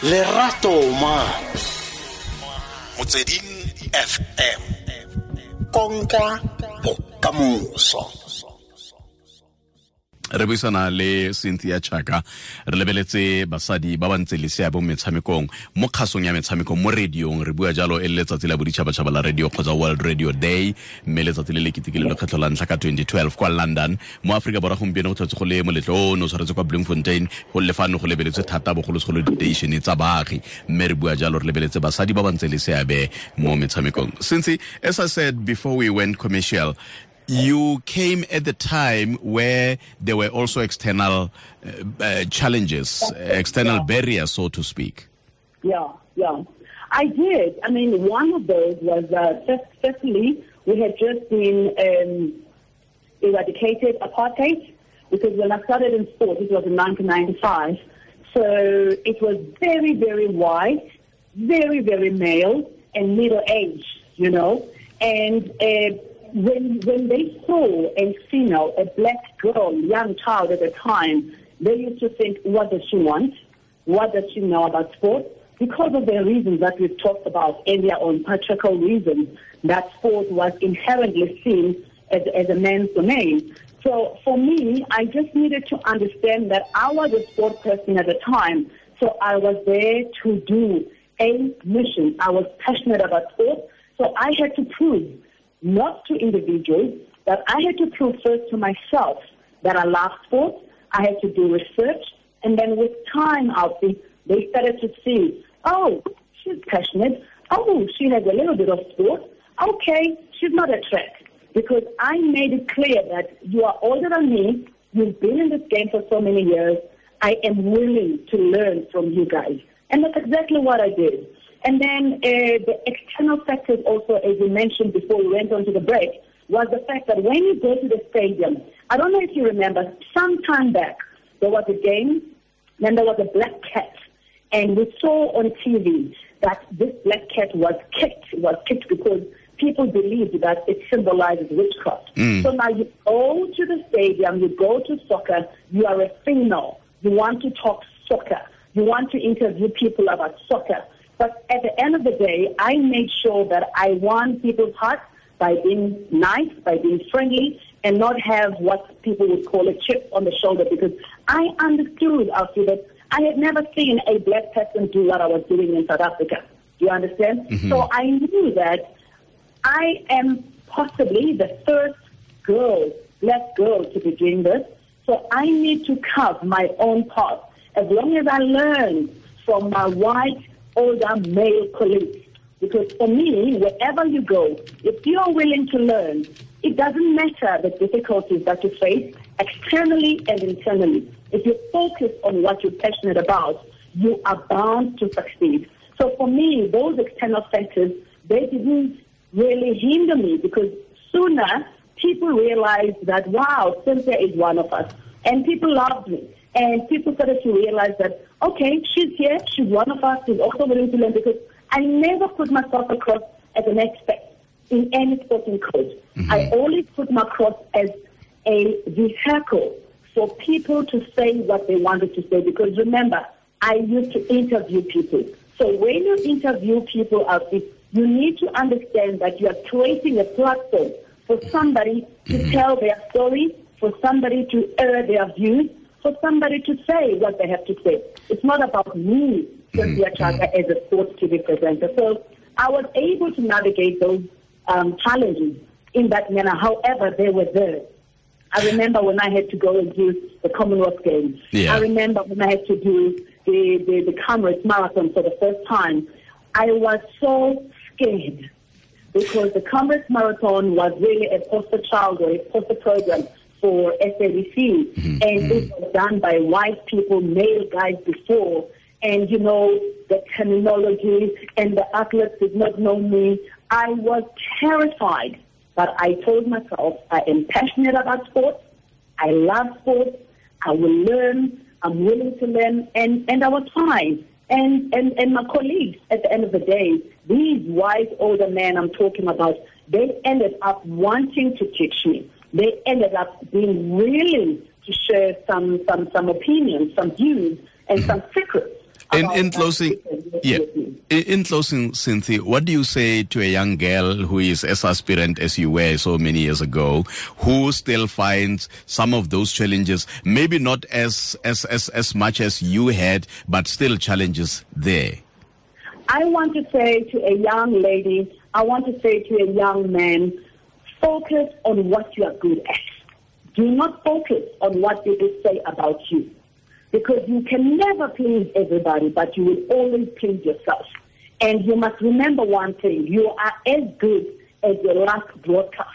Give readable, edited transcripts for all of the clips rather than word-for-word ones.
Lerato ma Motsweding FM Konka bokamoso. Re buisana le Cynthia Chaka, re lebeletse basadi ba ba ntse le seabe mo metshamekong, mo kgasong ya metshameko mo radiong. Re bua jalo e le letsatsi la boditšhabatšhaba la radio kgotsa World Radio Day, mme letsatsi le le ketekile lekgetlho la ntlha ka 2012 kwa London. Mo Aforika Borwa gompieno go tlhotse go le moletlo o ne o tshwaretse kwa Bloemfontein, go le fano go lebeletse thata bogolosegolo diteišene tsa baagi, mme re bua jalo re lebeletse basadi ba ba ntse le seabe mo metshamekong. Cynthia, as I said before we went commercial, you came at the time where there were also external challenges, external barriers, so to speak. Yeah. I did. I mean, one of those was, firstly, we had just been eradicated apartheid, because when I started in sport, it was in 1995. So it was very, very white, very, very male, and middle-aged, you know. And when they saw a female, a black girl, young child at the time, they used to think, what does she want? What does she know about sport? Because of the reasons that we've talked about earlier on, patriarchal reasons, that sport was inherently seen as a man's domain. So for me, I just needed to understand that I was a sport person at the time, so I was there to do a mission. I was passionate about sport, so I had to prove, not to individuals, but I had to prove first to myself that I love sport. I had to do research. And then with time, Alfie, they started to see, oh, she's passionate. Oh, she has a little bit of sport. Okay, she's not a threat. Because I made it clear that you are older than me. You've been in this game for so many years. I am willing to learn from you guys. And that's exactly what I did. And then the external factors also, as you mentioned before we went on to the break, was the fact that when you go to the stadium, I don't know if you remember, some time back, there was a game, then there was a black cat. And we saw on TV that this black cat was kicked because people believed that it symbolizes witchcraft. Mm. So now you go to the stadium, you go to soccer, you are a female. You want to talk soccer. You want to interview people about soccer. But at the end of the day, I made sure that I won people's hearts by being nice, by being friendly, and not have what people would call a chip on the shoulder, because I understood, Alfie, that I had never seen a black person do what I was doing in South Africa. Do you understand? Mm-hmm. So I knew that I am possibly the first girl, black girl, to be doing this. So I need to carve my own path. As long as I learn from my white, older male colleagues. Because for me, wherever you go, if you are willing to learn, it doesn't matter the difficulties that you face externally and internally. If you focus on what you're passionate about, you are bound to succeed. So for me, those external factors, they didn't really hinder me, because sooner people realized that, wow, Cynthia is one of us. And people loved me. And people started to realize that, okay, she's here, she's one of us, she's also willing to learn, because I never put myself across as an expert in any sporting code. Mm-hmm. I always put my cross as a vehicle for people to say what they wanted to say, because remember, I used to interview people. So when you interview people out there, you need to understand that you are creating a platform for somebody to mm-hmm. tell their story, for somebody to air their views, for somebody to say what they have to say. It's not about me, Cynthia Chaka, as a sports TV presenter. So I was able to navigate those challenges in that manner. However, they were there. I remember when I had to go and do the Commonwealth Games. Yeah. I remember when I had to do the Comrades Marathon for the first time. I was so scared because the Comrades Marathon was really a poster child or a poster program for SABC, mm-hmm. and it was done by white people, male guys before, and you know, the terminology and the athletes did not know me. I was terrified, but I told myself I am passionate about sports, I love sports, I will learn, I'm willing to learn, and I was fine. And my colleagues, at the end of the day, these wise older men I'm talking about, they ended up wanting to teach me. They ended up being willing share some opinions, some views, and some secrets. In closing, in closing, Cynthia, what do you say to a young girl who is as aspirant as you were so many years ago, who still finds some of those challenges, maybe not as much as you had, but still challenges there? I want to say to a young lady, I want to say to a young man, focus on what you are good at. Do not focus on what people say about you. Because you can never please everybody, but you will always please yourself. And you must remember one thing, you are as good as your last broadcast.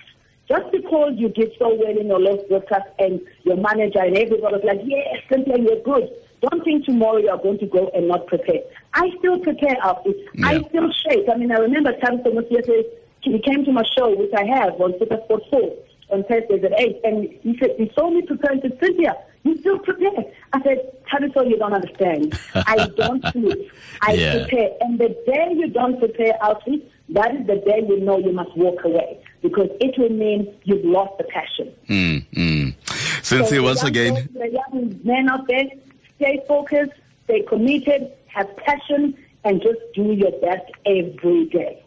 Just because you did so well in your last broadcast and your manager and everybody was like, yes, Cynthia, you're good. Don't think tomorrow you are going to go and not prepare. I still prepare, Alfie. Yeah. I still shake. I mean, I remember Thabiso Mosiese, he came to my show, which I have on SuperSport 4 on Thursdays at 8, and he said, he saw me preparing to Cynthia, you still prepare. I said, Thabiso, you don't understand. I don't sleep. I prepare. And the day you don't prepare, Alfie, that is the day you know you must walk away, because it will mean you've lost the passion. Cynthia, so once again, the young men out there, stay focused, stay committed, have passion, and just do your best every day.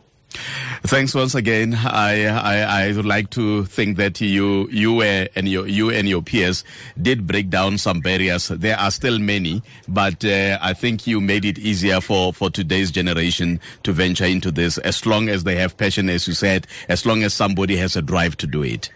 Thanks once again. I would like to think that you and your peers did break down some barriers. There are still many, but I think you made it easier for today's generation to venture into this, as long as they have passion, as you said, as long as somebody has a drive to do it.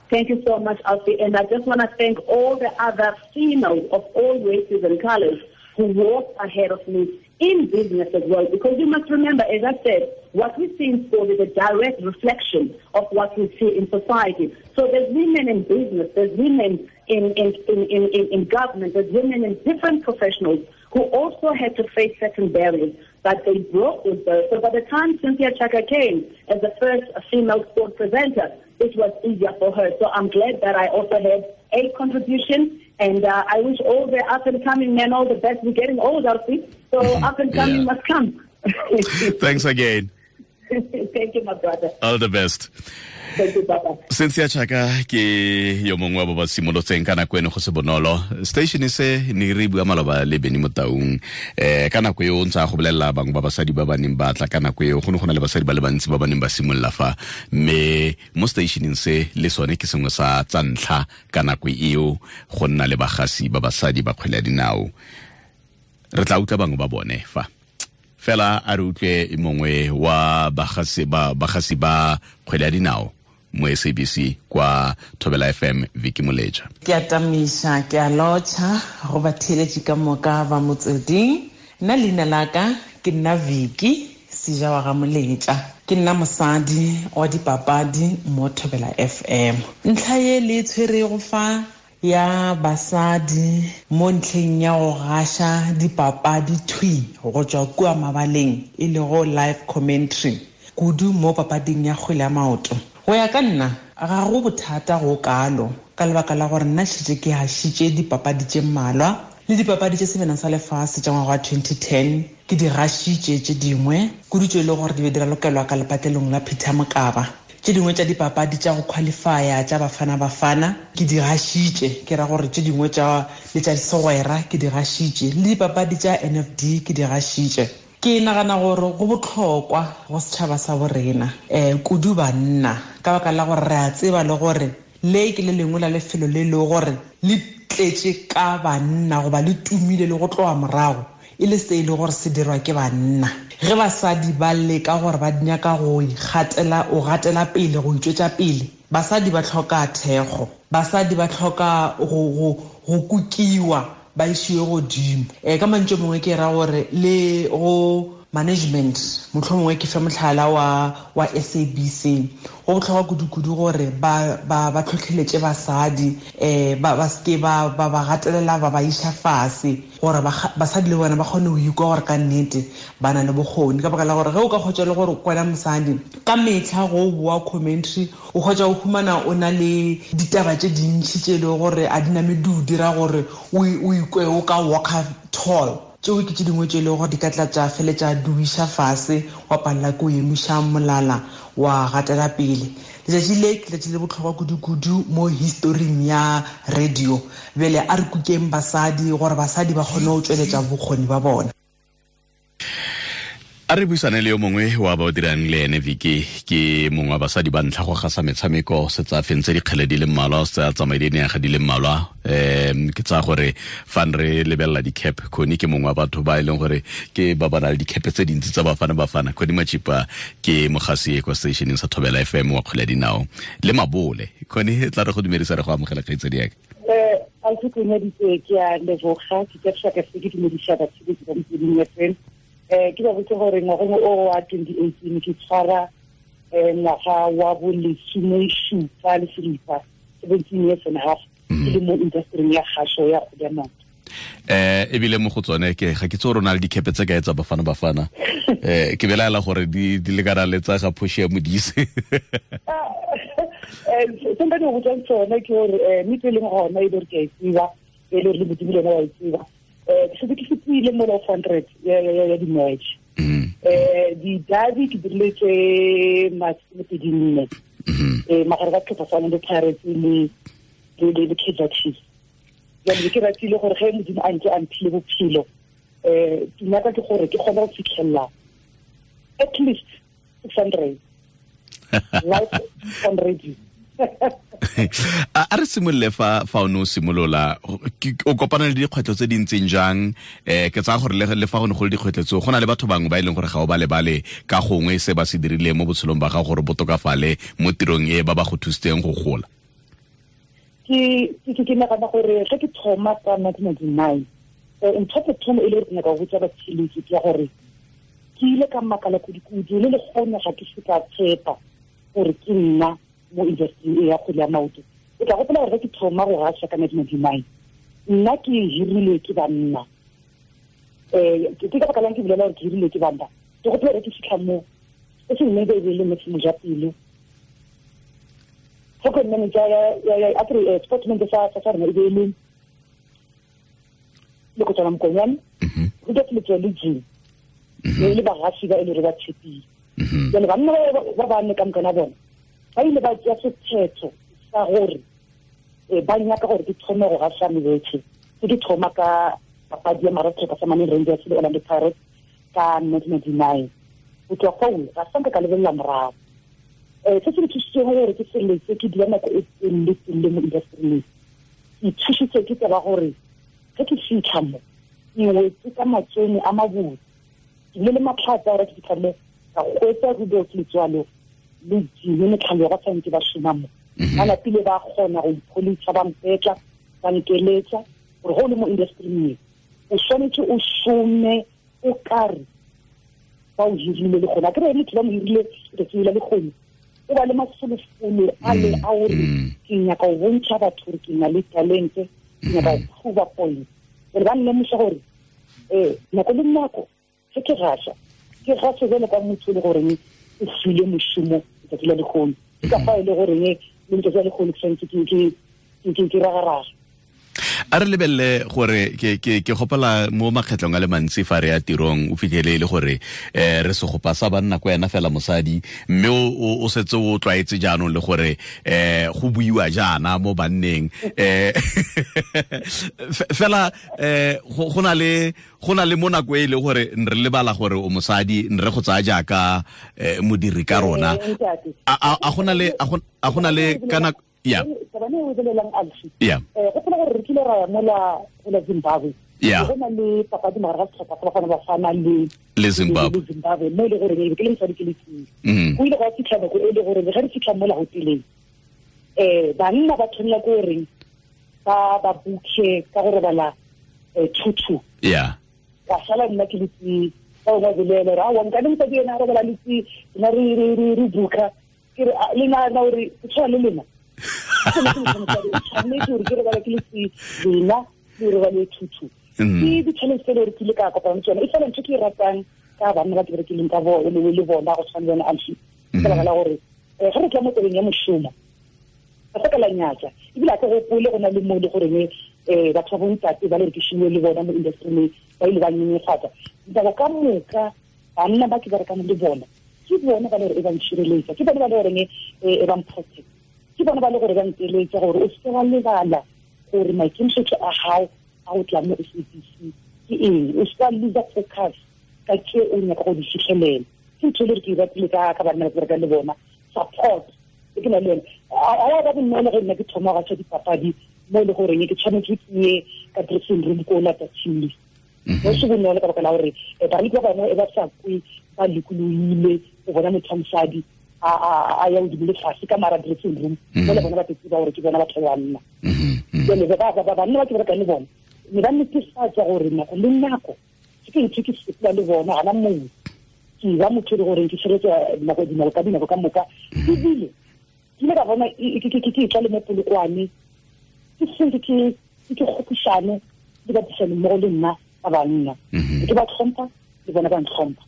Thank you so much, Alfie. And I just want to thank all the other females of all races and colors who walked ahead of me in business as well, because you must remember, as I said, what we see in sport is a direct reflection of what we see in society. So there's women in business, there's women in government, there's women in different professionals who also had to face certain barriers, but they broke those barriers. So by the time Cynthia Chaka came as the first female sport presenter, it was easier for her. So I'm glad that I also had a contribution, and I wish all the up-and-coming men all the best. We're getting old, Alfie, so up-and-coming must come. Thanks again. Thank you, my brother. All the best. Thank you, Baba. Cynthia Chaka ke yo mongwe wa ba ba simolotseng ka nako eno go se bonolo. Station se ne re bua maloba le Benny Motaung. Ka nako eo ntse a go bolelela bangwe ba basadi ba ba neng ba tla ka nako eo, go ne go na le basadi ba le bantsi ba ba neng ba simolola fa, mme mo stationeng se le sone ke sengwe sa tsa ntlha ka nako eo go nna le bagasi ba basadi ba kgwele ya dinao. Re tla utlwa bangwe ba bone fa. Fela a re utlwe mongwe wa bagasi ba kgwele ya dinao mo SABC kwa Thobela FM, Vicky Moleja. Ke a tamiša, ke a lotšha go batheeletši ka moka ba Motsweding. Nna leina la ka ke nna Vicky Seja wa ga Moleja. Ke nna mosadi wa dipapadi mo Thobela FM. Ntlha ye le tshwerego fa ya basadi mo ntlheng ya go gaša dipapadi thwi go tswa kua mabaleng, e lego live commentary kudu mo papading ya kgwele ya maoto. Go ya ka nna ga go bothata go kalo, ka lebaka la gore nna šetše ke gašitše dipapadi tše mmalwa le dipapadi tše sebena sa lefase tša ngwaga wa 2010 ke di gašitše tše dingwe kudu tše e le gore di be di ralokelwa ka lepatlelong la Peter Mokaba. Tše dingwe tša dipapadi tša go qualifya tša Bafana Bafana ke di gašitše, ke ra gore tše dingwe tša le tša segwera ke di gašitše, le dipapadi tša NFD ke di gašitše. Ke nagana gore go botlhokwa go setšhaba sa borena kudu banna, ka baka la gore re a tseba le gore le ke le lengwe la lefelo le le gore le tletše ka banna goba le tumile le go tloga morago, e le se e le gore se dirwa ke banna. Ge basadi ba leka gore ba nyaka go ikgatela, o gatela pele, go itšwetša pele, basadi ba tlhoka thekgo, basadi ba tlhoka go kukiwa, ba išiwe godimo. Ka mantšu mongwe ke ra gore le go management, mohlomongwe ke fe mohlala wa SABC, go bohlokwa kudu-kudu gore ba tlhotlheletše basadi, ba seke ba gatelela, ba iša fase, gore basadi le bona ba kgone go ikwa gore ka nnete ba na le bokgoni. Ka baka la gore ge o ka kgotsa le gore kwena mosadi ka metlha go boa commentary, o kgotsa o humana o na le ditaba tše dintšhi tše e le gore a di name di o dira gore o ikwe o ka walker tall. Tšeo ke tše dingwe tše e le gore di ka tla tša feletša duiša fase, wa palela ke o emiša molala wa gatela pele. Letšatši le ke letšatši le bohlokwa kudu-kudu mo historing ya radio. Bjale a re kukeng basadi gore basadi ba kgone go tšweletša bokgoni ba bona. A re buisane le yo mongwe wa ba o dirang le ene Viki, ke mongwe wa basadi ba ntlha go gasa metshameko se tsa fentse dikgele di le mmalwa, se tsa tsamaile dinaga di le mmalwa. Ke tsaya gore fa re lebelela di-cap, Connie ke mongwe wa batho ba e leng gore ke ba ba na le di-cap tse dintsi tsa Bafana Bafana. Connie Machipa ke mogasi kwa stationeng sa Thobela FM wa kgwele ya dinao le mabole. Connie, tla re go dumedisa, re go amogela kgaitsedi yaka. A ke dumedise, ke a leboga, ke ka tlhoka se ke dumedisa batshegetsi ba Motsweding FM. Ke ba botse gore ngwageng o wa 2018 ke tshwara ngwaga wa bo 17 le seripa, 17 years and a half, ke le mo industry ya kgašo ya kgwele ya maoto. Ebile mo go tsone ke ga ke tse gore o na le dikhepe tse kae tsa Bafana Bafana. Ke belaela gore di lekana le tsa ga Portia Modise. Se nka di go botsang tsone ke gore nnete e leng gona e le gore ke a e tseba, e le gore le Modimo le ena wa e tseba. Ke setse ke fetile mo le 400 ya di-match. Di-derby ke dirile tse 24, magare ga setlhopha sa Orlando Pirates le Kaizer Chiefs. Jalo ke ratile gore ge Modimo a ntse a mphile bophelo, ke nyaka ke gore ke kgone go fitlhelela at least 600 life on radio. A re simolole fa o ne o simolola, o kopana le dikgwetlho tse di ntseng jang? Ke tsaya gore le fa go ne go le dikgwetlho tseo, go na le batho bangwe ba e leng gore ga o ba lebale ka gongwe se ba se dirileng mo botshelong ba gago gore bo tokafale mo tirong e ba ba go thusitseng go gola. Ke nagana gore ge ke thoma ka 1999, ntho ya thomo e le gore ke nyaka go botsa batsheletsi ke ya gore ke ile ka makala kudu-kudu le lekgono ga ke se ka tshepa gore ke nna mo industry e ya kgwele ya maoto. O tla gopola gore ge ke thoma go gaša ka 1999, nna ke hirilwe ke banna. Ke ka baka lang ke bolela gore ke hirilwe ke banna? Ke gopola gore ke fitlha mo, e seng mme e be le Max Mojapelo. Go manager ya sport manager sa rena e be e le Lekotswana Mokonyane, Rudolf Letswele Jim, e le bagaši ba e le gore ba tshepile. Jale banna ba bane ka mokana bona ba ile ba tšea sephetho sa gore ba nyaka gore ke thome go gaša mebetšhe. Ke thoma ka papadi ya marathoka sa Moneni Rangers le Orlando Pirates ka 1999. Go tloga foo ga sanka ka lebelela morago. Se se nthusitseng gore ke feleletse ke dula nako e telele mo industry-eng, ke thusitse ke taba gore ge ke fitlha mo ke wetse ka matswene a mabotse, ke bile le matlhatsa gore ke fitlha mo ka hwetsa Rudolf Letswalo le Jimmy Metlhalo ba santse ba šoma mo. Ba napile ba kgona go ipholisa, ba mpetla, ba nkeletsa gore go le mo industry-eng o tshwanetse o šome o kare ba o hirile le gona. Ke re motho ba mo hirile letsatsi la lekgono, o ba le mafolofolo a le a gore ke nyaka go bontšha batho gore ke na le talente, ke nyaka go prove a point. Gore ba nlemoša gore nako le nako ge ke gaša, ke gaša jalo ka motho e le goreng o filwe mošomo letsatsi la lekgono. Ke ka fa e le goreng le letsatsi la lekgono ke santse ke ragaraga. A re lebelele gore ke gopola mo makgetlong a le mantsi fa re ya tirong o fitlhele e le gore re segopa sa banna ko ena fela mosadi, mme o setse o tlwaetse jaanong le gore go buiwa jaana mo banneng. Fela go na le mo nako e le gore re lebala gore o mosadi, re go tsaya jaaka modiri ka rona. A go na le kana. Yeah. Yeah. Go re kile ra mola go Zimbabwe. Yeah. Go na le papadi magare ga setlhopha sa Bafana Bafana le Zimbabwe. Zimbabwe mo le gore ke le mosadi ke le tee. Go ile go fitlha nako e le gore ge re fitlha mola hoteleng, banna ba tshwanela ke goreng ba bukhe ka go robala 2-2. Yeah. Ka sala nna ke le tee, ba ba bolela gore aowa nka le mosadi ena a robala le tee, nna re bukha. Ke re le nna gore ke tshwana le lena. Tshwanetse gore ke robala ke le tee, lena le robale 2-2. Ke di-challenge tse le gore ke ile ka kopana le tsone. E fela ntho ke e ratang ka banna ba ke berekileng ka le bona go tshwana le yone Alfi, ka lebaka la gore ge re tla mo tabeng ya mošomo ga sa ka la nyatša, ebile a ke gopole go na le mo le goreng batho ba bontate ba le gore ke šomile le bona mo industry-eng ba ile ba nyenyefatsa. Ditaba ka moka banna ba ke berekang le bona Ke bone ba le gore e ba ntshireletsa, ke bone ba le goreng e ba mprotect, ke bone ba le gore ba nteletsa gore o se wa lebala gore maikemisetso a gago a go tla mo SABC ke eng, o se wa lose focus ka tse o nyaka go di fitlhelela. Ke ntho e le gore ke e ratile ka banna ba ke bereka le bona, support e ke na le yone. A ba bonolo ge nna ke thoma go tsa dipapadi mo e le goreng ke tshwanetse ke ye ka dressing room ko lata team list. Go se bonolo ka baka la gore bareki ba bangwe e ba sa kwe ba lokolohile go bona motho wa mosadi a ya godimo le tlase ka mara dressing room, mo le bona ba tseba gore ke bona batho ba banna. Jale ba banna ba ke berekang le bona ne ba netefatsa gore nako le nako ke ntho ke sepela le bona gana mongwe ke ba motho e le goreng ke tshireletsa nako dinako ka dinako ka moka. Ebile ke ile ka bona ke tla le mo Polokwane ke sentse ke kgopišane le badisane mmogo le nna ba banna, ke ba tlhompha le bona ba ntlhompha.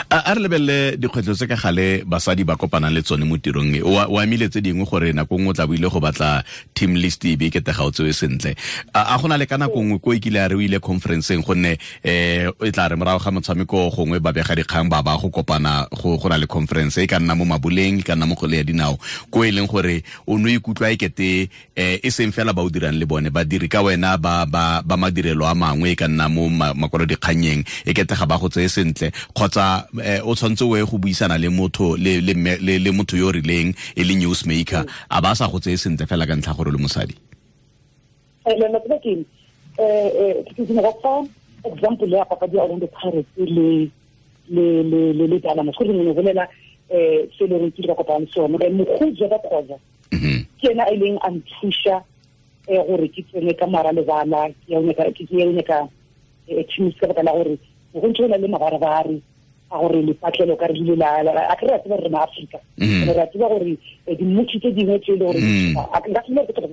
A re lebelele dikgwetlho tse ka gale basadi ba kopanang le tsone mo tirong e. O amile tse dingwe gore nako nngwe o tla buile go batla team list e be kete ga o tsewe sentle. A gona le ka nako nngwe ko e kile a re o ile conferenceng gonne e tla re morago ga motshameko gongwe ba bega dikgang ba ba go kopana go na le conference e ka nna mo maboleng, e ka nna mo kgwele ya dinao, ko e leng gore o no ikutlwa e kete e seng fela ba o dirang le bone badiri ka wena ba madirelo a mangwe e ka nna mo makwalodikgannyeng e kete ga ba go tseye sentle, kgotsa o tshwanetse o ye go buisana le motho le motho yo rileng e le newsmaker a ba sa go tseye sentle fela ka ntlha gore le mosadi. Ke go fa example ya papadi ya Orlando Pirates le le le le le Dynamos, gore ne bolela se le re ke ka kopana le sone mogodi ba Khoza ke ena a ileng a nthuša gore ke tsene ka mara lebala ke ya nyaka team ka baka la gore go ntse go na le mabarebare a gore lepatlelo ka re le la a ke re a tseba re ma Afrika, re a tseba gore dimmuthi tse dingwe tse e le gore a nka se ke tla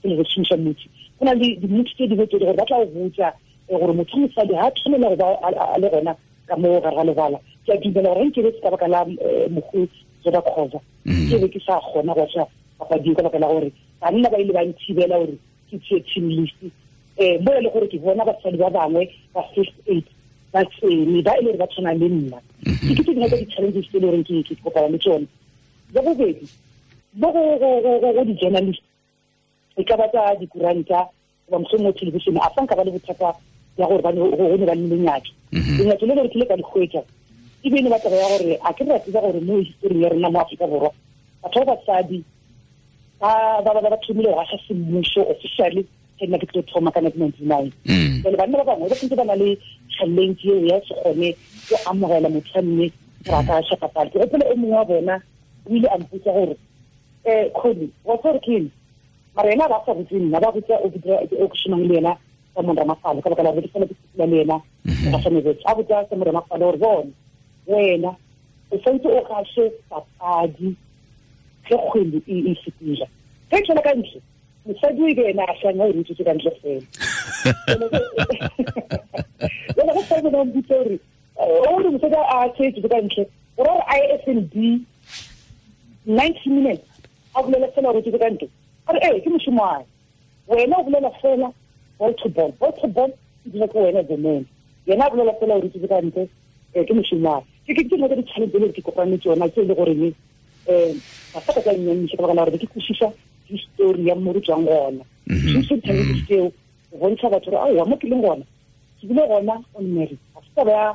se le go šomiša mmuthi, go na le dimmuthi tse dingwe tse e le gore ba tla go botsa gore motho mosadi ha tshwanela go ba a le gona ka mo gare ga lebala. Ke a dumela gore nke be se ka baka la mogodi Zoda Khoza ke be ke sa kgona go tsa papadi ka baka la gore banna ba ile ba nthibela gore ke tseye team list mo e le gore ke bona basadi ba bangwe ba first aid ba tsene ba e le gore ba tshwana le nna. Ke tse dingwe tsa di-challenges tse e le goreng ke kopana le tsone. Ya bobedi mo go di-journalist e ka ba tsa dikuranta goba mohlomongwe mo television a fa nka ba le bothata ya gore go ne ba le lenyatso lenyatso le gore ke ile ka le hwetša e be ne ba taba ya gore a ke re a tseba gore mo historing ya rena mo Afrika Borwa batho ba basadi ba thomile go gaša semmušo officially ke nna ke tlo thoma ka 1999. Jale banna ba bangwe ba sentse ba na le challenge eo ya se kgone go amogela motho wa mme gore a ka gaša papadi. Ke gopola o mongwe wa bona o ile a mpotsa gore Connie wa tseba gore ke eng, mara yena ba sa botse nna, ba botsa o ke šomang le yena Simon Ramafalo ka baka la gore ke swana ke sepela le yena gaša mebetse. A botsa Simon Ramafalo gore bone wena o santse o gaše papadi ge kgwele e sepela, ge tšwela ka ntle mosadi o ebe ena a hlanga o rutse ka ntle fela. Jale ge Simon a mpitsa gore o re mosadi a tsetse ka ntle o ra gore a ye F&B 90 minutes a bolela fela o rutse ka ntle, a re ee ke mošomo wa wena o bolela fela ball to ball, ball to ball e dira ke wena the man, yena a bolela fela o rutse ka ntle ke mošomo wa. Ke dingwe tsa di-challenge le ke kopane le tsona tse e le goreng ga sa ka tsa nnyamiša ka baka la gore ke kwešiša histori ya mo re tswang gona. Šomiša di-challenge tseo go bontsha batho gore aowa mo ke leng gona ke bile gona on merit, ga se taba ya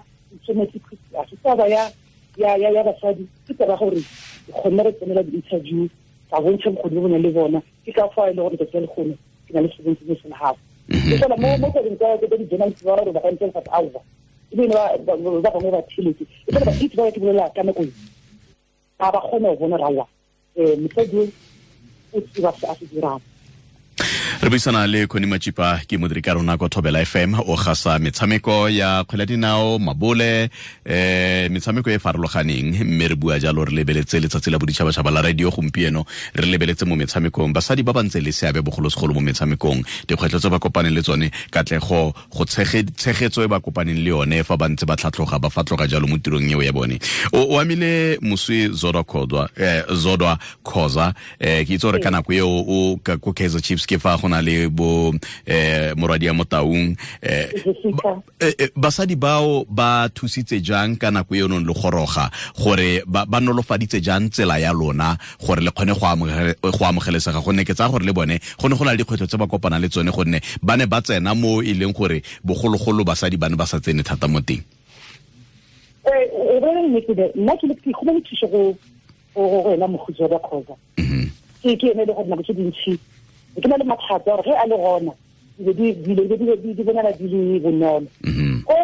ga se taba ya basadi, ke taba gore ke kgonne go tsenela di-interview ka bontsha bokgoni bo bone le bona. Ke ka fa e le gore letsatsi la lekgono ke na le 17.5. Ke fela mo tabeng tsa di-journalist ba gore ba ka ntle lefatshe aowa ebile ba bangwe ba tšhelete e fela ba itse ba ke bolela ka nako e ga ba kgone go bona raowa mosadi o tseba se a se dirang. Re buisana le Connie Matsipa ke modiri ka rona kwa Thobela FM, o gasa metshameko ya kgwele ya dinao, mabole, metshameko e farologaneng, mme re bua jalo re lebeletse letsatsi la boditšhabatšhaba la radio gompieno, re lebeletse mo metshamekong basadi ba ba ntse le seabe bogolosegolo mo metshamekong, dikgwetlho tse ba kopaneng le tsone, katlego go tshegetso e ba kopaneng le yone fa ba ntse ba tlhatlhoga ba fatloga jalo mo tirong eo ya bone. O amile moswi Zodwa Khoza, ke itse gore ka nako eo o ko Kaizer Chiefs ke fa go go na le bo Morwadia Motaung, basadi bao ba thusitse jang ka nako e nong le goroga, gore ba nolofaditse jang tsela ya lona gore le kgone go amogelesega, gonne ke tsaya gore le bone go ne go na le dikgwetlho tse ba kopana le tsone, gonne ba ne ba tsena mo e leng gore bogologolo basadi ba ne ba sa tsene thata mo teng. O bone nnete, nna ke le ke khumane thuso go wena mogotsi wa Khoza. Ke ene le gore nako tse dintsi ke na le mathata gore ge a le gona dilo di bonala di le bonolo. Ko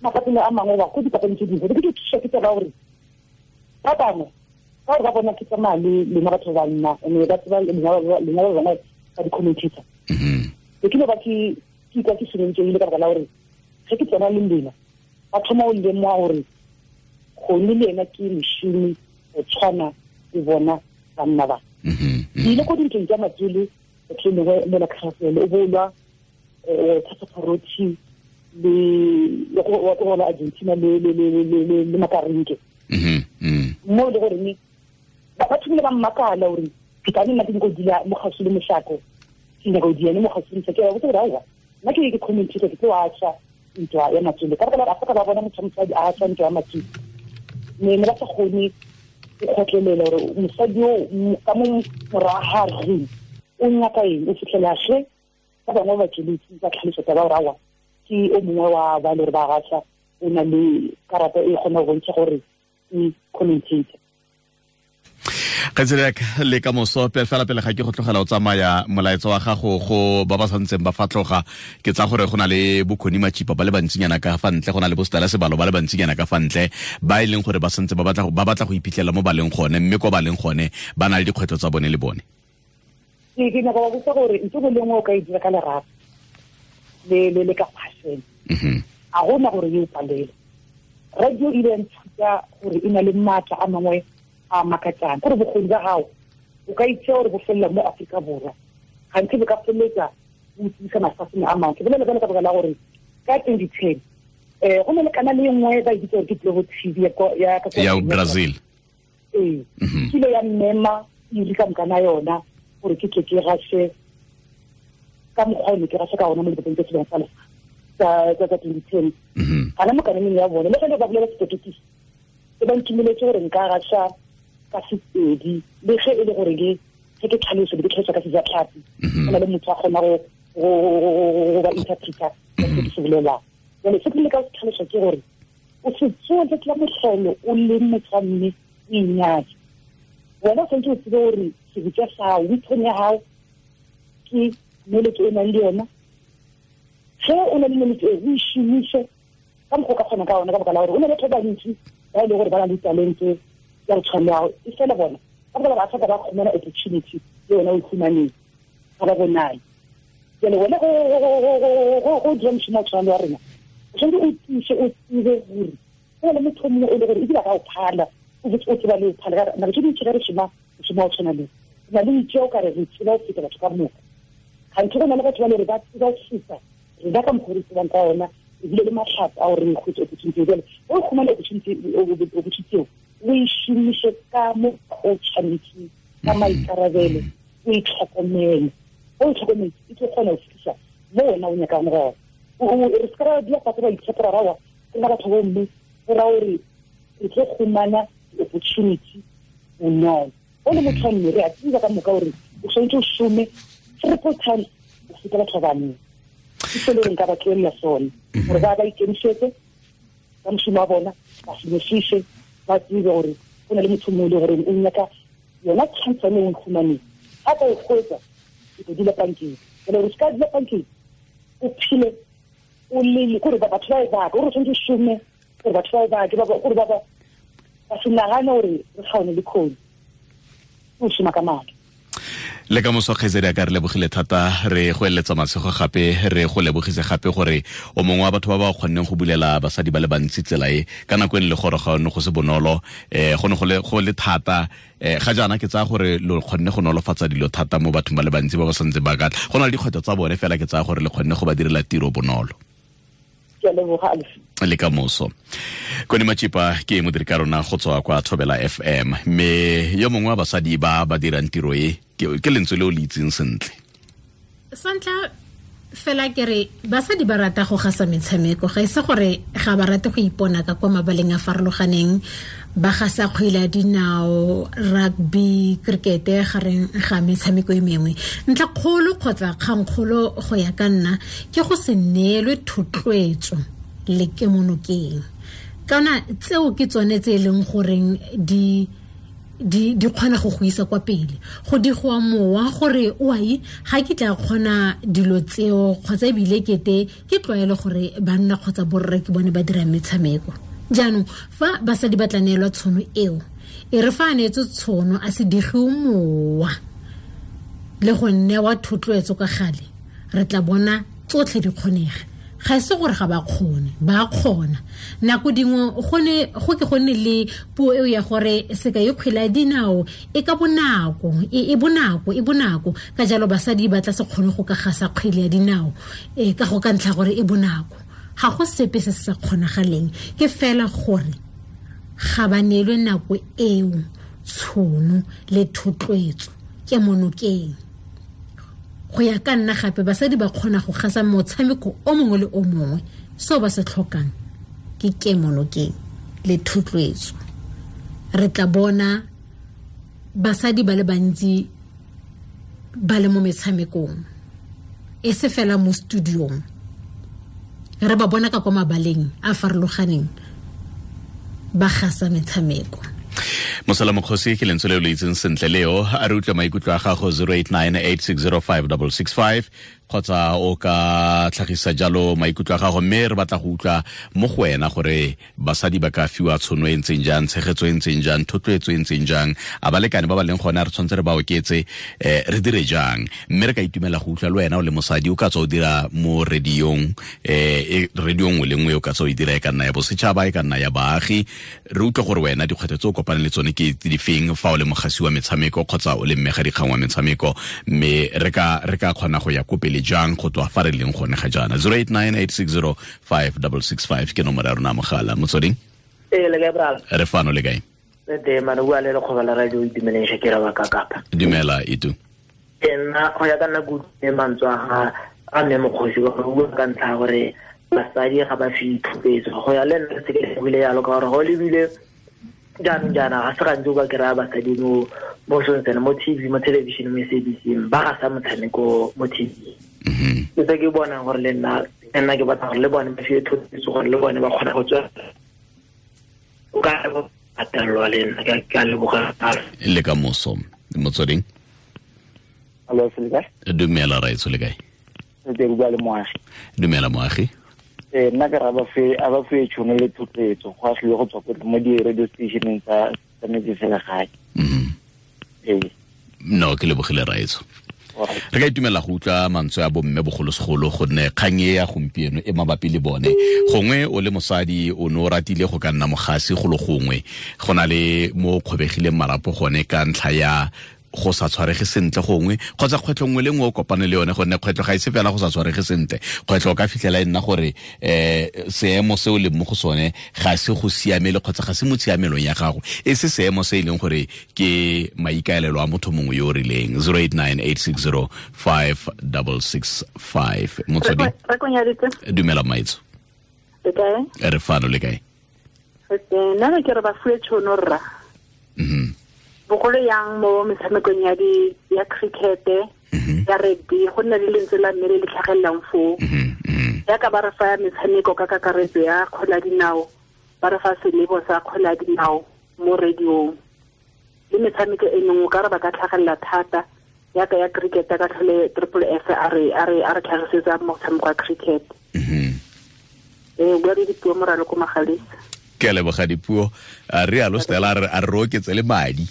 mafapheng a mangwe ba ko dipapadi tse dingwe ke thusa ke tseba gore ba bangwe ka gore ba bona ke tsamaya le lena batho ba nna ene ba tseba lena ba bona ba di-commentator. Ke kile ba ke ikwa ke tshwenyegile ka baka la gore ge ke tsena le lena ba thoma go lemoga gore gone le ena ke mošomi go tshwana le bona banna ba. Ke ile ko dintlong tsa matswele tlelengwe mola Kgafele o bolwa Thatha le wa go Argentina le Makarinke. Mo le gore ni ba thomile ba mmakala gore ke tla nna ke go dula mo gaufi le moshako, ke nyaka go dula mo gaufi le moshako, ke ba botsa gore aowa nna ke commentator ke tlo atswa ntwa ya matswele ka baka la Afrika ba bona motho mosadi a atswa ntwa ya matswele, mme ne ba sa kgone go kgotlelela gore mosadi o ka mo morago o nyaka eng, o fitlhela ge ba bangwe ba tsweletse ba tlhalosa taba gore aowa ke o mongwe wa ba le gore ba gaša o na le karata e kgona go bontsha gore ke commentator. Kgaitsedi ya ka, le ka moso fela pele ga ke go tlogela o tsamaya, molaetsa wa gago go ba ba santseng ba fatloga, ke tsa gore go na le bokgoni Matshipa ba le bantsinyana ka fa ntle, go na le bo Stella Sebalo ba le bantsinyana ka fa ntle, ba e leng gore ba santse ba batla go iphitlhela mo ba leng gone, mme ko ba leng gone ba na le dikgwetlho tsa bone le bone. Ke nyaka go botsa gore ntho e lengwe o ka e dira ka lerato le ka passion. A gona gore e o palele. Radio e ile ya nthuta gore e na le maatla a mangwe a makatsang, gore bokgoni ba gago o ka itse gore bo felela mo Afrika Borwa, gantsi bo ka feleletsa bo tsisa mafatsheng a mangwe. Ke bolela jalo ka baka la gore ka 2010 go na le kanale e nngwe ba e bitsa gore ke Globo TV ya Brazil. Ee, kile ya mmema iri ka mokana yona gore ke tle ke gashe ka mokgwa o ne ke gashe ka ona mo dipapeng tse tse tsa 2010. Gana mo kanaleng ya bone le ge ba bolela Sepotokisi, e ba ntumeletse gore nka gasha ka Sepedi, le ge e le gore ke ke tlhaloso ke tlhalosa ka Sejatlhapi, go na le motho a kgona go ba interpreter ka se ke se bolelang. Jale se ke leka go tlhalosa ke gore o se tsoe letsatsi la motlholo o le motho wa mme o inyatse. Wena o tshwanetse o tsebe gore sebetsa sa gago, weapon ya gago ke knowledge o nang le yona. Ge o na le knowledge e, o e šomiše ka mokgwa o ka kgona ka ona, ka baka la gore o na le batho ba bantsi ba e leng gore ba na le talente ya go tshwana le ya gago, e fela bona ka baka la ba tlhoka ba khumana opportunity le wena o e humaneng, ga ba bonale. Jale wena go dira mošomo wa tshwana le wa rena, o tshwanetse o tiise o tsebe gore go na le motho o mongwe o le gore ebile a ka o phala, o tseba le o phala. Ka nako tse dintsi ge re šoma mošomo wa go tshwana le o na le itšeo ka re re tseba go feta batho ka moka, gantsi go na le batho ba le gore ba tseba go feta rena ka mokgwa o re tsebang ka ona, ebile le matlhatsa a gore re kgwetse opportunity. Jale o khumana opportunity eo, o e šomiše ka mokgwa o tshwanetseng, ka maikarabelo, o itlhokomele. O itlhokometse, e tlo kgona go fitlhisa mo wena o nyakang gona. Re se ka ra dula fatshe ba itshepela ra wa ke nna batho bomme, go raya gore re tlo khumana opportunity bonolo. O le motho wa mme, re a tseba ka moka gore o tshwanetse o šome triple times go feta batho ba banna. Ke se le gore nka ba tlohelela sone, gore ba ikemišetse ka mošomo wa bona, ba se nyefiše, ba tsebe gore go na le motho mongwe le gore o nyaka yona chance yone o e humaneng, a ka e hwetsa e tlo dula pankeng. Jale gore se ka dula pankeng o phele o lele gore batho ba e baka, gore o tshwanetse o šome gore batho ba e bake, gore ba se nagane gore re kgaone le kgoni, o šoma ka maatla. Le ka moso kgaitsedi ya ka, re lebogile thata, re go eletsa masego gape, re go lebogise gape gore o mongwe wa batho ba ba kgonneng go bulela basadi ba le bantsi tsela e ka nako e le gore ga ne go se bonolo, go ne go le thata. Ga jaana ke tsaya gore lo kgonne go nolofatsa dilo thata mo bathong ba le bantsi ba ba santse ba ka tla. Go na le dikgwetlho tsa bone fela, ke tsaya gore le kgonne go ba direla tiro bonolo. Le ka moso. Connie Matshipa ke modiri ka rona go tswa kwa Thobela FM, mme yo mongwe wa basadi ba ba dirang tiro e ke lentswe le o le itseng sentle. Santlha fela ke re basadi ba rata go gasa metshameko, ga ise gore ga ba rate go ipona ka kwa mabaleng a farologaneng, ba gasa kgwele ya dinao, rugby, cricket, gareng ga metshameko e mengwe. Ntlha kgolo kgotsa kgangkgolo go ya ka nna ke go se neelwe thotloetso le kemonokeng. Kana tseo ke tsone tse e leng goreng di kgona go go isa kwa pele, go digoa mowa gore oai ga ke tla kgona dilo tseo, kgotsa ebile kete ke tlwaelo gore banna kgotsa borre ke bone ba dirang metshameko. Jaanong fa basadi ba tla neelwa tshono eo, e re fa a neetswe tshono a se digiwe mowa le go newa thotloetso ka gale, re tla bona tsotlhe di kgonega. Ga se gore ga ba kgone, ba kgona. Nako dingwe go ke go nne le puo eo ya gore sekai kgwele ya dinao e ka bonako, e bonako, ka jalo basadi ba tla se kgone go ka gasa kgwele ya dinao ka go ka ntlha gore e bonako. Ga go sepe se se sa kgonagaleng, ke fela gore ga ba neelwe nako eo, tshono le thotloetso ke monokeng. Go ya ka nna gape basadi ba kgona go gasa motshameko o mongwe le o mongwe, seo ba se tlhokang ke kemonokeng le thotloetso. Re tla bona basadi ba le bantsi ba le mo metshamekong, e se fela mo studiong, re ba bona ka kwa mabaleng a farologaneng ba gasa metshameko. Mosala Mokgosi ke lentswe le o le itseng sentle leo, a re utlwe maikutlo a gago 0898605665 kgotsa o ka tlhagisa jalo maikutlo a gago, mme re batla go utlwa mo go wena gore basadi ba ka fiwa tshono e ntseng jang, tshegetso e ntseng jang, thotloetso e ntseng jang, a balekane ba ba leng gone a re tshwanetse re ba oketse, re dire jang. Mme re ka itumela go utlwa le wena o le mosadi o ka tswa o dira mo radiong, radio nngwe le nngwe o ka tswa o e dira, e ka nna ya bosetšhaba, e ka nna ya baagi, re utlwe gore wena dikgwetlho tse o kopaneng le tsone ke difeng fa o le mogasi wa metshameko kgotsa o le mmega dikgang wa metshameko, mme re ka kgona go ya ko pele jang go tswa fa re leng gone ga jaana. 0898605665 ke nomoro ya rona mogala. Motsweding? Ee, le kae brala? Re fano, le kae? Re teng, mane bua le lekgoba la radio Itumeleng Shakira wa Kakapa. Dumela Itu. Ke nna go ya ka nna ke utlwile mantswe a ga mme Mokgosi wa go bua ka ntlha ya gore basadi ga ba fiwe thotloetso. Go ya le nna se ke buile jalo ka gore go lebile jaanong jaana ga se gantsi o ka kry-a basadi mo sone mo TV, mo television, mo SABC ba gasa motshameko mo TV. Ke se ke bonang gore le nna ke batla gore le bone ba fiwe thotloetso gore le bone ba kgone go tswa. O ka patelwa le nna ke a leboga. Le ka moso. Motsweding? Hello, le kae? Dumela raetsho, le kae? Re bua le Moagi. Dumela Moagi. Nna ke re a ba fiwe tšhono le thotloetso go agiwe go tswa mo di-radio stationeng tsa metseselegae. No, ke lebogile raetsho. Re ka itumela go utlwa mantswe a bomme bogolosegolo, gonne kgang e ya gompieno e mabapi le bone. Gongwe o le mosadi o ne o ratile go ka nna mogasi golo gongwe, go na le mo kgobegileng marapo gone ka ntlha ya go sa tshwarege sentle gongwe, kgotsa kgwetlho nngwe le nngwe o kopane le yone, gonne kgwetlho ga e se fela go sa tshwarege sentle, kgwetlho o ka fitlhela e nna gore seemo se o leng mo go sone ga se go siamele kgotsa ga se mo tshiamelong ya gago, e se seemo se e leng gore ke maikaelelo a motho mongwe yo o rileng. 0898605665. Motswedi? Dumela maitso. Re fano, le kae? Nna ke re ba fiwe tšhono rra. Bogolo yang mo metshamekong ya ya cricket, ya rugby, go nna le lentswe la mme le le tlhagelelang foo. Jaaka ba re fa metshameko ka kakaretso ya kgwele ya dinao, ba re fa selebo sa kgwele ya dinao mo radiong. Le metshameko e mengwe o ka re ba ka tlhagelela thata, jaaka ya cricket ka tlhole Triple F a re tlhagisetsa motshameko wa cricket. Bua le Dipuo Moralo ko Magalesa. Ke a leboga Dipuo. A re alo Stella a re oketse le madi.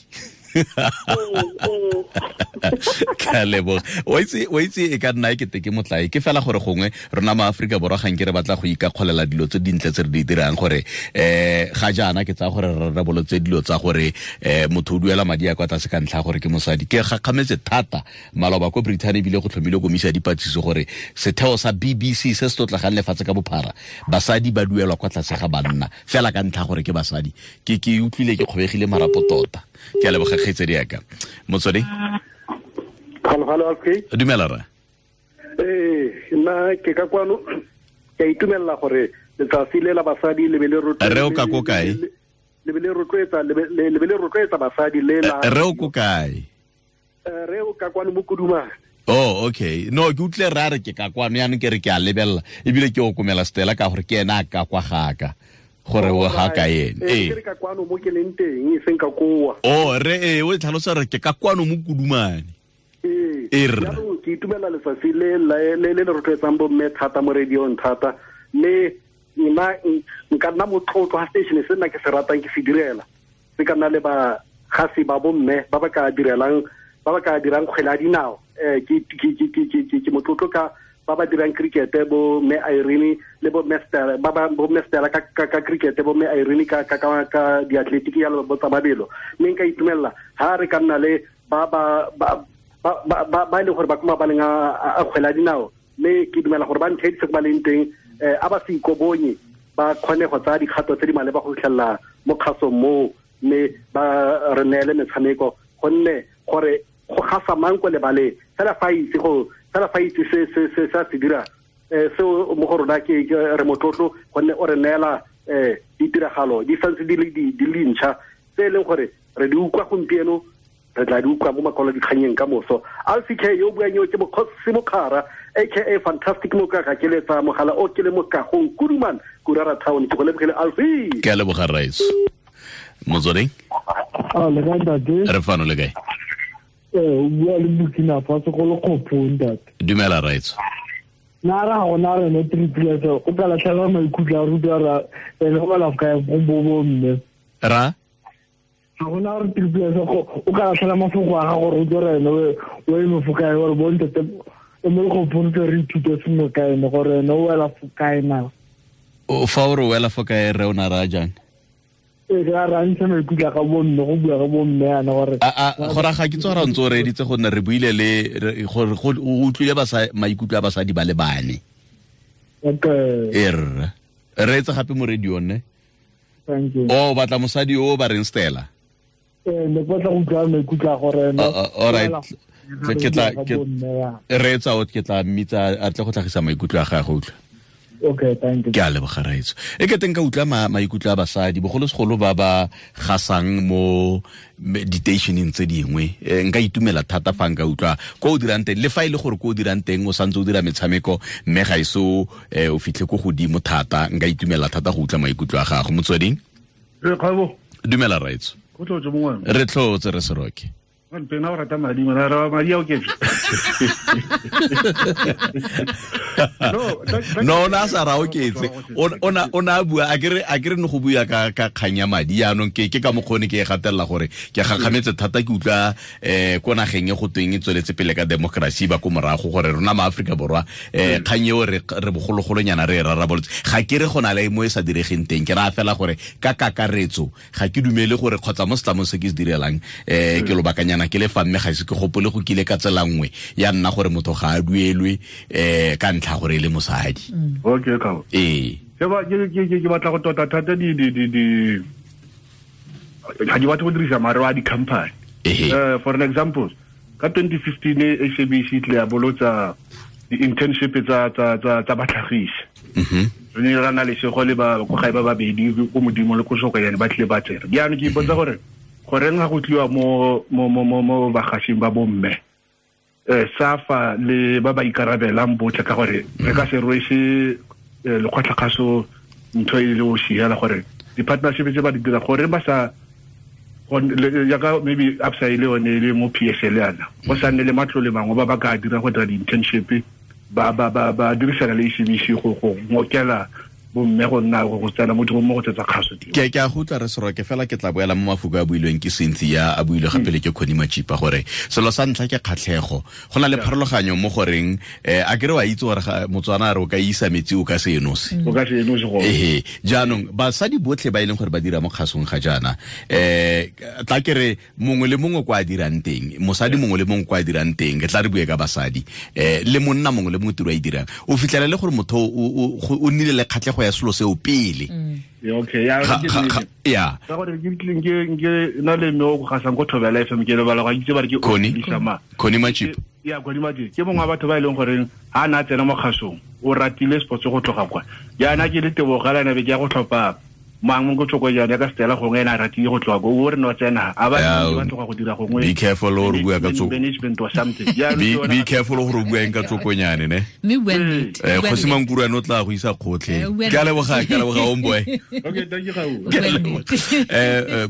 Ke a leboga. O itse e ka nna e kete ke motlae, ke fela gore gongwe rona ma Afrika Borwa ga nke re batla go ikakgolela dilo tse dintle tse re di dirang, gore ga jaana ke tsaya gore re rabolotse dilo tsa gore motho o duela madi a kwa tlase ka ntlha gore ke mosadi. Ke gakgametse thata maloba ko Britain ebile go tlhomile komisi ya dipatlisiso gore setheo sa BBC se se tlotlegang lefatshe ka bophara, basadi ba duelwa kwa tlase ga banna fela ka ntlha gore ke basadi. Ke utlwile ke kgobegile marapo tota. Ke a leboga kgaitsedi ya ka. Motswedi? Hello, okay. Dumela rra. Nna ke ka kwano ke itumella gore letsatsi le la basadi le be le rotloetsa. Re o ka ko kae? Le be le rotloetsa le be le rotloetsa basadi le la. Re o ko kae? Re o ka kwano mo Kudumane. Oh, okay. No, ke utlwe ra re ke ka kwano yaanong ke re ke a lebella ebile ke okomela Stella ka gore ke ena a ka kwa gaka gore o ga ka ene. Ke re ka kwano mo ke leng teng e seng ka koa. Oh, re o tlhalosa re ke ka kwano mo Kudumane. Ee. Ke itumela letsatsi le le le rotloetsang bomme thata mo radiong thata mme nna nka nna motlotlo ha station se nna ke se ratang ke se direla. Se ka nna le ba gasi ba bomme ba ba ka direlang ba ba ka dirang kgwele ya dinao. Ke motlotlo ka ba ba dirang cricket bo mme Irene le bo mme Stella ba ba bo mme Stella ka cricket bo mme Irene ka ka ka diatletiki ya bo tsa mabelo. Mme nka itumella ha re ka nna le ba ba ba ba ba ile gore ba kuma ba leng a kgwele ya dinao mme ke dumela gore ba nthedise ko ba leng teng a ba se ikobonye ba kgone go tsaya dikgato tse di maleba go fitlhelela mo kgasong moo mme ba re neele metshameko gonne gore go gasa mang ko lebaleng fela fa itse go fela fa itse se se se sa se dira seo mo go rona ke re motlotlo gonne o re neela ditiragalo di santse di le di lintšha tse e leng gore re di utlwa gompieno re tla di utlwa mo makwalo dikganyeng ka moso. LCK yo buang yo ke Mokgosi Mokgara aka Fantastic Mokaka ke letsa mogala o ke le mo kagong Kuduman Kurara Town. Ke go lebogile Alfie. Ke a leboga Raitso. Motsweding? Le kae ntate? Re fano le kae? O bua le Burkina Faso go le kgopo ntate. Dumela Raitso. Na ra gona re ne triple o ka latlhela maikutlo a ruta ra ene go bala ka go bo mme. Ra? Ga gona re triple go o ka latlhela mafoko a gago gore o tlo re ene o eme fo kae gore bo ntate o mo go pontse re ithute sengwe ka ene gore ene o wela fo kae na. O fa o re wela fo kae re o na ra jang? E ra ra ntsha maikutlo a ga bomme go bua ga bomme yana gore a gore ga ke tswa ra ntse o reeditse go nne re buile le gore o utlwile maikutlo a basadi ba le bane. Okay. E rra re etsa gape mo radio ne. Thank you. O batla mosadi o ba reng Stella? Ne ke batla go utlwa maikutlo a gore ene. All right. Ke tla re etsa o ke tla mmitsa a tle go tlhagisa maikutlo a gagwe utlwa. Okay, thank you. Ke a leboga Raitso. E ke teng ka utlwa maikutlo a basadi bogolosegolo ba ba gasang mo diteisheneng tse dingwe. Nka itumela thata fa nka utlwa ko o dirang teng le fa e le gore ko o dirang teng o santse o dira metshameko mme ga eso o fitlhe ko godimo thata. Nka itumela thata go utlwa maikutlo a gago. Motsweding? Re kgwebo. Dumela Raitso. Go tlotse mongwe. Re tlotse re Seroke. Pena o rata madi mona ra madi a oketse. No na sa ra oketse. O na bua a ke re ne go bua ka kganya madi yaanong ke ka mokgone ke e gatella gore ke gakgametse thata ke utlwa ko nageng e go tweng e tsweletse pele ka democracy ba ko morago gore rona ma Afrika Borwa kgang eo re bogologolonyana re e rarabolotse. Ga ke re go na le mo e sa diregeng teng ke ra fela gore ka kakaretso ga ke dumele gore kgotsa mo setlamong se ke se direlang ke lobakanyana ke le fa mme ga se ke gopole go kile ka tsela nngwe ya nna gore motho ga a duelwe ka ntlha gore e le mosadi. Okay ka. Ee. Ke batla go tota thata di ga di batho go dirisa maro a di-company. For an example, ka 2015 SABC tle ya bolotsa di-internship tsa batlhagisi. Re ne ra na le sego le ba ko gae ba babedi ko modimo le ko Sokoyane ba tlile ba tsena. Jaanong ke ipotsa gore goreng ga go tliwa mo mo bagasing ba bomme SAFA le ba ba ikarabelang botlhe ka gore re ka se rwese lekgotlakgaso ntho e le o siela gore di-partnership tse ba di dira gore ba sa yaka maybe ABSA e le yone e le mo PSL yana go sa nne le matlole mangwe ba ba ka dira go dira di-internship ba ba ba ba dirisana le SABC go ngokela bomme go nna go tsena mo mo go tsetsa kgaso. Ke a go utlwa re Seroke fela ke tla boela mo mafoko a builweng ke Cynthia a builwe gape le ke Connie Machipa gore selo sa ntlha ke kgatlhego. Go na le pharologanyo mo goreng a kere wa itse gore Motswana a re o ka isa metsi o ka se enose. O ka se enose go. Ehe jaanong basadi botlhe ba e leng gore ba dira mo kgasong ga jaana tla ke re mongwe le mongwe kwa a dirang teng mosadi mongwe le mongwe kwa a dirang teng ke tla re bue ka basadi le monna mongwe le mongwe tiro a e dirang o fitlhela le gore motho o nnile le kgatlhego kago ya selo seo pele. Okay, ya ya ka gore ke tleng ke na le me go gasang go Thobela FM ke lebala ga itse ba re ke Connie Machip. Ya Connie Machip ke mongwe wa batho ba e leng gore ha na tsena mo kgasong o ratile sports go tloga kwa. Jaana ke le tebogela na be ke ya go tlhopa mang go tsoko jana ka stela gongwe ena ratile go tloga go o re no tsena a ba ba tloga go dira gongwe. Be careful o re bua ka tsoko management or something. Ya be careful gore o bua eng ka tsokonyane ne. Mme bua nnete. Kgosi Mankuru ane o tla go isa kgotlhe. Ke a leboga homeboy. Okay, thank you gao.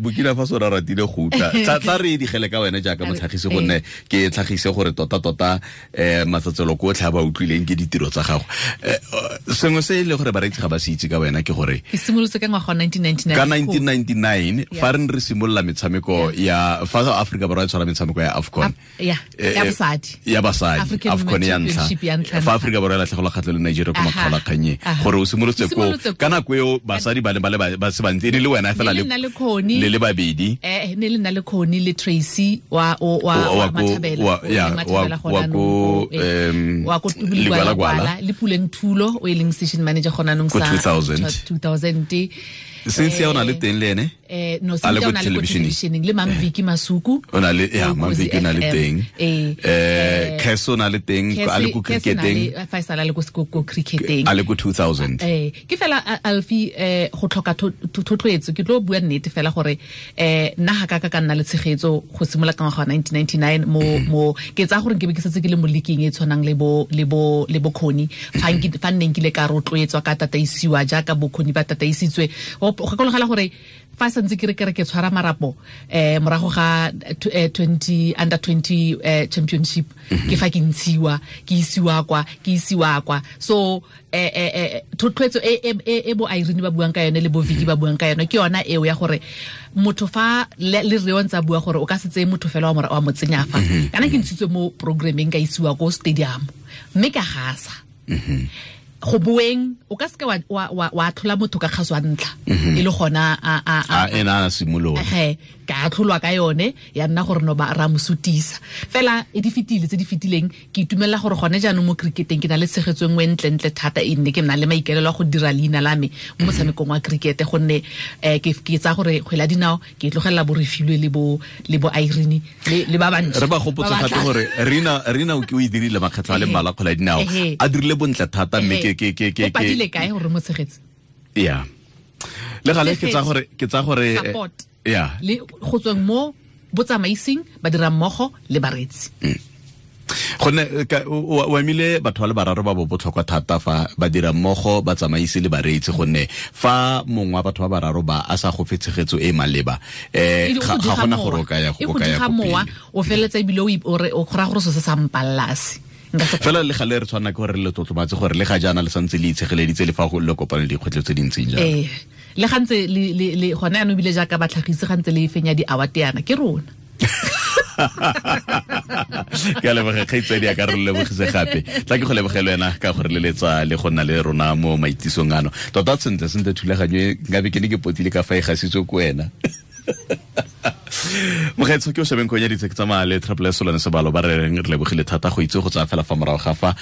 Burkina Faso ra ratile go utlwa. Tla re digele ka wena jaaka motlhagisi gonne ke tlhagise gore tota tota matsatselo ko tlha ba utlwileng ke ditiro tsa gago. Sengwe se e le gore bareetsi ga ba se itse ka wena ke gore ke simolotse ka ngwaga 1999. Ka 1999 fa re re simolola metshameko ya fa Africa Borwa e tshwara metshameko ya AFCON ya basadi AFCON ya ntlha fa Africa Borwa e latlhegelwa kgatlhanong le Nigeria ko makgaolakganyeng gore o simolotse ko ka nako eo basadi ba ne ba le ba se bantsi e ne le wena fela le le babedi ne le nna le Connie le Tracy wa Mathabela wa ko wa ko Ligwalagwala le Puleng Thulo o e leng station manager gona nong sa 2000. Cynthia o na le teng le ene? No, Cynthia o na le ko televisioning le Mam Vicky Masuku. O na le ya Mam Vicky o na le teng. Keso o na le teng a le ko cricketeng. Fa sala le ko cricketeng. A le ko 2000. Ke fela Alfie go tlhoka thotloetso ke tlo bua nnete fela gore nna ga ka nna le tshegetso go simolola ka ngwaga wa 1999 mo ke tsa gore ke be ke setse ke le mo leaking e tshwanang le bo Connie fa nneng ke le ka rotloetswa ka tataisiwa jaaka bo Connie ba tataisitswe. O gakologela gore fa santse ke re ke tshwara marapo morago ga 20 under 20 championship ke fa ke ntshiwa ke isiwa kwa so thotloetso e bo Irene ba buang ka yone le bo Vicky ba buang ka yone ke yona eo ya gore motho fa le re o ntsa bua gore o ka se tseye motho fela wa mo tsenya fa kana ke ntshitswe mo programming ka isiwa ko stadium mme ka gasa go boeng o ka seke wa atlhola motho ka kgaso wa ntlha e le gona a ena a simolola ka atlholwa ka yone ya nna gore no ba ra mosutisa fela e di fetile tse di fetileng ke itumella gore gone jaanong mo cricketeng ke na le tshegetso nngwe ntle thata e nne ke nna le maikelelo a go dira leina la me mo motshamekong wa cricket gonne ke tsa gore kgwele ya dinao ke tlogelela bo Refilwe le bo Irene le ba bantsi re ba gopotsa gape gore Rina o ke o e dirile makgetlho a le mmalwa kgwele ya dinao a dirile bontle thata mme ke padile kae gore mo tshegetse ya le gale ke tsa gore ya le go tsweng mo botsamaising ba dira mmogo le baretsi gonne o amile batho ba le bararo ba bo botlhokwa thata fa ba dira mmogo ba tsamaise le bareetsi gonne fa mongwe wa batho ba bararo ba a sa go fe tshegetso e maleba ga gona gore o ka ya go mowa o feletsa ebile o gora gore se sa mpallase fela le gale re tshwana ke gore le tlotlomatse gore le ga jaana le santse le itshegeleditse le fa go le kopane le dikgwetlho tse dintseng jalo le gantse le gone ano bile jaaka batlhagisi gantse le fenya di-award yana ke rona ke a leboge kgaitsadi a ka re lebogise gape tla ke go lebogele wena ka gore leletsa le go nna le rona mo maitisong ano tota sentle thulaganyo e nkabe ke ne ke potile ka fa e gasitswe ko wena Mogaetsho ke o shebeng konya ditse ke tsamaya le Triple S Solane Sebalo ba re reng re lebogile thata go itse go tsaya fela fa morago ga fa.